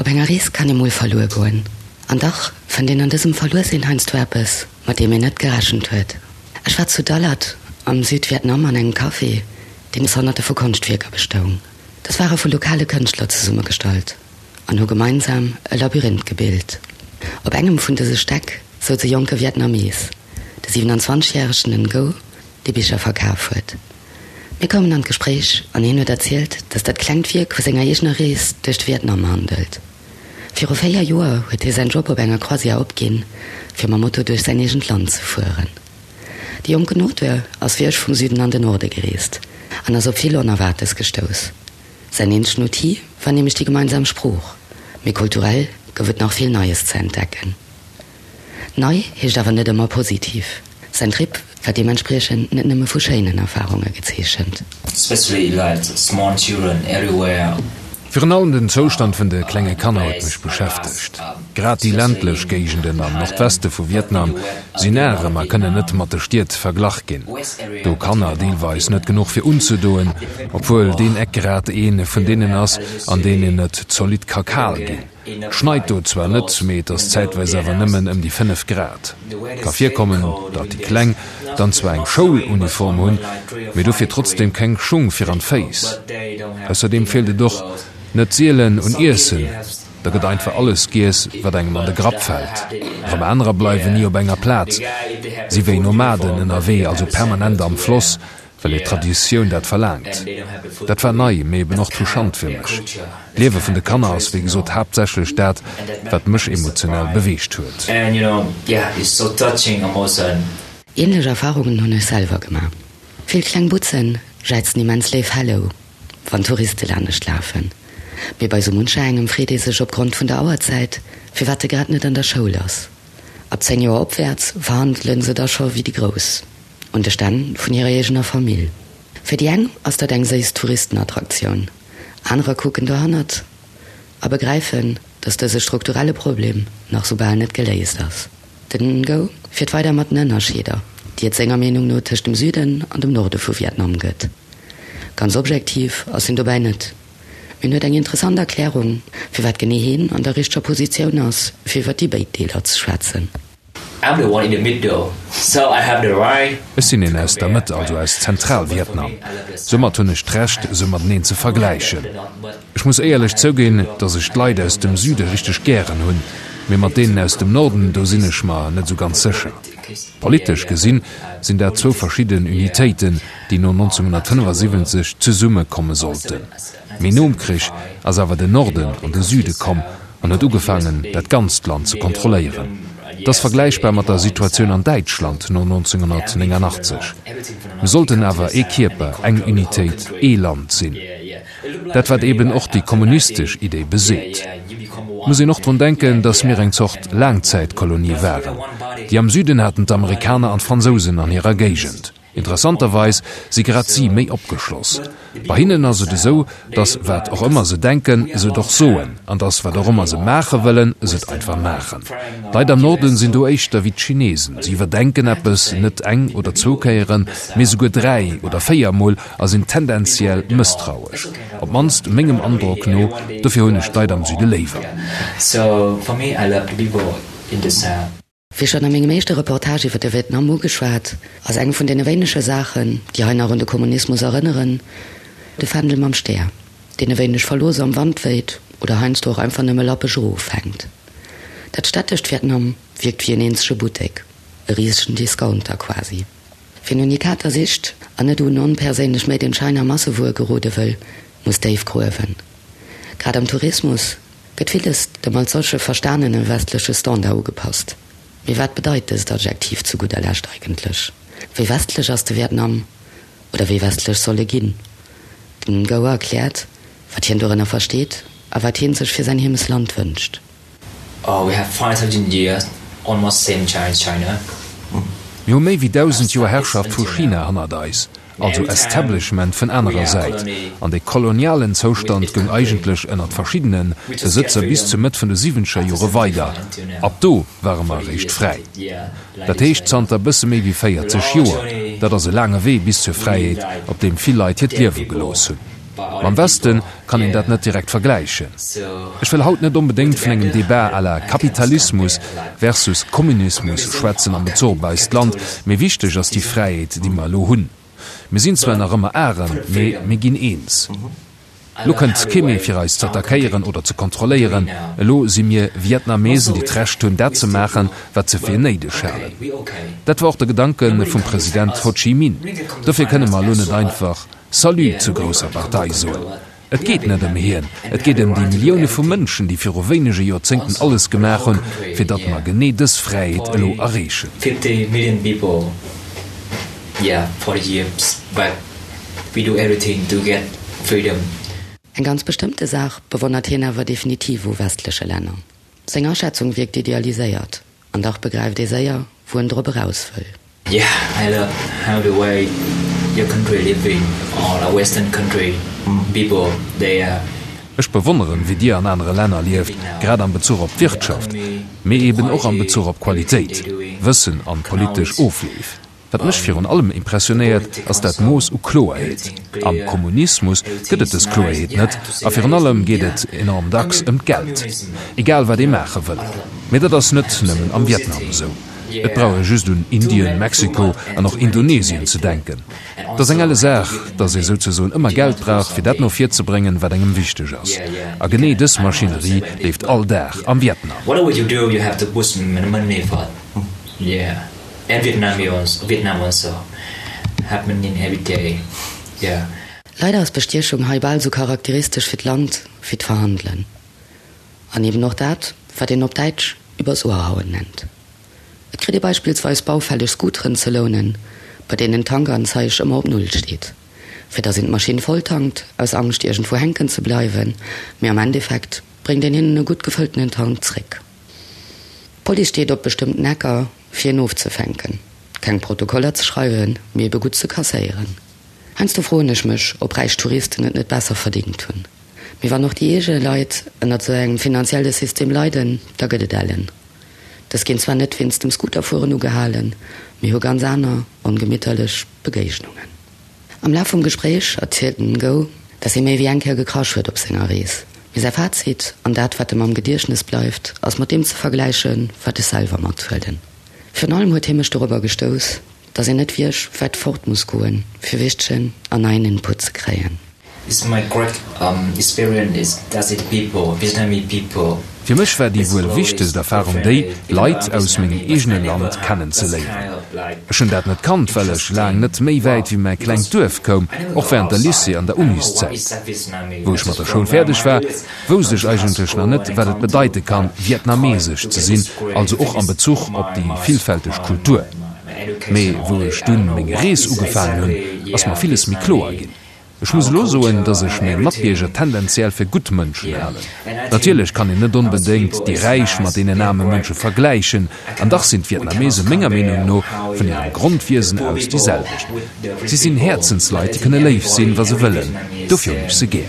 enger Rees kann ee mol verluer goen. An dach fënnt een an dësem Verluersinn heiansdo eppes, mat deem een net gerechent huet. Ech war zu Dalat am Südvietnam an engem Café, deen aus Honnerte vu Konschtwierker bestoung. Dës ware vu lokale Kënschtler zesummegestallt an hu gemeinsam e Labyrinth gebilt. Op engem vun dëse Stäck souz e jonke Vietnamees, de 27 järegen Ngo, dee Bicher verkaf huet. Mir koumen an d'Gespréich an hien huet erzielt, datt dat klengt Wierk vu senger eegener Rees duerch de Vietnam handelt. Viru 4 Joer huet hie säin Job op enger Croisière opginn, fir mam Moto duerch säin eegent Land ze fueren. De jonken Auteur ass wéi ech vum Süden an den Norde gereest an ass op vill Onerwaartes gestouss. Säin eenzegen Outil war nämlech déi gemeinsam Sprooch, mee kulturell gouf et nach vill Neies ze entdecken. Nei heescht awer net ëmmer positiv. Säin Trip war deementspriechend net nëmme vu schéinen Erfarunge gezeechent. Especially like small children everywhere. Virun allem den Zoustand vun de klenge Kanner huet mech beschäftegt. Grad déi ländlech Géigenden am Nordweste vu Vietnam sinn arem a kënnen net mat de Stied verglach ginn. Do Kanner deelweis net genuch fir unzedoen, obwuel deen Eck grad ee vun deenen ass, an deenen et zolidd ka kal ginn. Et schneit do zwar net, mee et ass zäitweis awer nëmmen ëm déi 5 Grad. Ka virkommen, datt déi Kleng dann zwar eng Schouluniform hunn, mee dofir trotzdeem keng Schung fir an d'Féiss. Ausserdeem feelt et och net sielen un Iessen, da gëtt einfach alles giess, wat engem an de Grapp fält. Erëm anerer bleiwen ni op enger Plaz, si wéi Nomaden ënnerwee, also permanent am Floss, well hir Traditioun dat verlaangt. Dat war nei, mee eben och touchant fir mech. D'Liewe vun de Kanner ass wéi gesot haaptsächlech dat, wat mech emotionell beweegt huet. Ähnlech Erfahrungen hunn ech selwer gemaach. Vill kleng Butzen jäizen immens léif Hello, wann Touriste lanescht lafen. Mee bei sou muncher engem freet ee sech opgrond vun der Auerzäit, firwat e grad net an der Schoul ass. Ab 10 Joer opwäerts verhandele se da scho wéi déi Grouss. Un de Stänn vun hirer eegener Famill. Fir déi eng ass dat eng séiss Touristenattraktioun, anerer kucken dohannert a begräifen, datt dëse strukturelle Problem nach soubal net geléist ass. Den Ngo fiert weider mat den Ënnerscheeder, déi et senger Meenung no tëscht dem Süden an dem Norde vu Vietnam gëtt. Ganz objektiv ass hien dobäi net, mee en huet eng interessant Erklärung, firwat genee hien an der richteger Positioun ass, fir iwwer déi béid Deeler ze schwätzen. Ech sinn een aus der Mëtt, also aus Zentral-Vietnam. Soumat hunn ech d'Recht, se mateneen ze vergläichen. Ech muss éierlech zouginn, datt ech d'Leit aus dem Süde richteg gären hunn, mee mat deenen aus dem Norden, do sinn ech mer net esou ganz sécher. Politesch gesinn, sinn dat zwou verschidden Unitéiten, déi no 1975 zesumme komme sollten. Mee nom Krich ass awer den Norden an de Süde komm an huet ugefaangen, dat ganzt Land ze kontrolléieren. Et ass vergläichbar mat der Situatioun an Däitschland no 1989. Mir sollten awer ee Kierper, eng Unitéit, ee Land sinn. Dat wat eben och déi kommunistesch Idee beseet. Et muss een och drun denken, datt mir eng Zort Laangzäitkolonie waren. Déi am Süden haten d'Amerikaner an d'Fransousen an hirer Géigend. Interessanterweis si grad si méi opgeschloss. Bei hinnen ass et esou, datt wat och ëmmer se denken, se et och soen, an datt wat och ëmmer se maache wëllen, se et einfach maachen. D'Leit am Norden sinn do éischter wéi d'Chinesen, si iwwerdenken eppes net eng oder zwou Kéieren, mee souguer 3 oder 4 Mol a sinn tendenziell mësstrauesch, op d'mannst mengem Androck no. Dofir hunn ech d'Leit am Süde léiwer. Wéi schonn a mengem éischte Reportage iwwer de Vietnam ugeschwat, ass eng vun deene wéinege Saachen, déi hei nach un de Kommunismus erënneren, de Fändel mam Stär, deen e wéineg verlooss am Wand wéit oder heiansdo och einfach nëmme lappeg erofhänkt. Dat stättescht Vietnam wierkt wéi en eenzege Buttek, e risegen Discounter quasi. Wien Unikater sicht an net un onperséinlech Made in China Massewuer gerode wëll, muss déif gruewen. Grad am Tourismus gëtt villes dem als solche verstanene westleche Standard ugepasst. Mee wat bedeit dëst Adjektiv zu gudder Lescht eigentlech? Wéi westlech ass de Vietnam? Oder wéi westlech soll e ginn? Den Ngo erkläert, wat hien dorënner versteet a wat hien sech fir säin Heemesland wënscht. We have 5000 years almost same Chinese China. Mir hu méi wéi 1000 Joer Herrschaft vu China hannert eis, also Establishment vun anerer Säit, an dee kolonialen Zoustand goung eigentlech ënnert verschiddene Besëtzer bis zur Mëtt vun de siwwenzeger Jore weider. Ab do ware mer eréischt fräi. Dat heescht zanter bësse méi wéi 40 Joer. Dat ass e laange Wee bis zur Fräiheet, op deem vill Leit hiert Liewe gelooss hunn. Mam Westen kann een dat net direkt vergläichen. Ech wëll haut net onbedéngt vun engem Debat à la Kapitalismus versus Kommunismus schwätzen am Bezuch op eist Land, mee wichteg ass déi Fräiheet, déi mer elo hunn. Mir sinn zwar nach ëmmer arem, mee mir ginn eens. Elo kënnt kee méi fir eis z'attackéieren oder ze kontrolléieren. Elo si mir Vietnamesen, déi d'Recht hunn, dat ze maachen, wat se fir néideg halen. Dat war och de Gedanke vum President Ho Chi Minh. Dofir kënne mer elo net einfach Salut zur grousser Partei soen. Et geet net ëm hien, et geet ëm déi Millioune vu Mënschen, déi viru wéinege Joerzéngten alles gemaach hunn, fir datt mer genee dës Fräiheet elo erreechen. 50 million people, yeah, 40 years back. We do everything to get freedom. Eng ganz bestëmmte Saach bewonnert hien awer definitiv u westleche Länner. Seng Aschätzung wierkt idealiséiert, an dach begräift ee séier, wou en drop eraus wëll. Yeah, I love how the way your country living or a western country people they are. Ech bewonneren, wéi Dir an anere Länner lieft, grad am Bezuch op d'Wirtschaft, mee eben och am Bezuch op Qualitéit, Wëssen an politesch Ofleef. Wat mech virun allem impressionéiert, ass dat Mooss u Kloerheet. Am Kommunismus gëtt et dës Kloerheet net, a virun allem geet et enorm dacks ëm d'Geld, egal wat ee maache wëll. Mee dat ass net nëmmen am Vietnam esou. Et brauch ee just un Indien, Mexiko an och Indonesien ze denken. Et ass eng elle Saach, datt ee souzesoen ëmmer Geld brauch, fir dat no vir ze bréngen, wat engem wichteg ass. A genee dës Maschinerie leeft all Dag am Vietnam. And Vietnamese Vietnam also happening every day yeah. Leider ass Bestiechung hei bal sou charakteristesch fir d'Land wéi d'Verhandelen. An eben och dat, wat een op Däitsch übers Ohr hauen nennt. Et kritt ee beispillsweis baufälleg Scooteren ze lounen, bei deenen d'Tankanzeig ëmmer op Null steet, fir datt een d'Maschinn volltankt, aus Angscht iergendwou hänken ze bleiwen, mee am Endeffekt bréngt een hinnen e gutt gefëlltenen Tank zréck. D'Police steet op bestëmmten Ecker, fir een ofzefänken, keng Protokoller ze schreiwen, mee ebe gutt ze kasséieren. Heiansdo froen ech mech, ob räich Touristen et net besser verdingt hunn. Mee wann och déi eege Leit ënnert esou engem finanzielle System leiden, da gëtt et ellen. Dës ginn zwar net wéinst dem Scooterfueren ugehalen, mee hu ganz aner, ongemitterlech Begéignungen. Am Laf vum Gespréich erzielt den Ngo, dass hie méi wéi eng Kéier gekrasch huet op senger Rees. Mee säi Fazit, an dat wat em am Gediechtnes bleift, ass mat deem ze vergläichen, wat ech selwer mathuelen. Virun allem huet hie mech dorobber gestouss, dass een net wierch wäit fort muss goen, fir wichtegen an neien Input ze kréien. Is my great experience is that it people, Vietnamese people. Fir mech war déi wuel wichtegst Erfarung déi, Leit aus mengem eegene Land kennen ze léieren. Ech hunn dat net kannt, well ech laang net méi wäit wéi mäi klengt Duerf koum, och wärend der Lycée an der Uniszäit. Wou ech mat der Schoul fäerdeg war, wousst ech eigentlech nach net, wat et bedeite kann, vietnamesesch ze sinn, also och am Bezuch op déi villfälteg Kultur. Mee wou ech dunn meng Rees ugefaangen hunn, ass mer villes méi kloer ginn. Ech muss elo soen, dass ech meng Matbierger tendenziell fir gutt Mënschen halen. Natierlech kann een net onbedéngt déi räich mat deenen aarme Mënsche vergläichen, an dach sinn d'Vietnamese menger Meenung no vun hirem Grondwiesen aus déi selwecht. Si sinn Häerzensleit, déi kënne léif sinn, wa se wëllen. Dofir hunn ech se gär.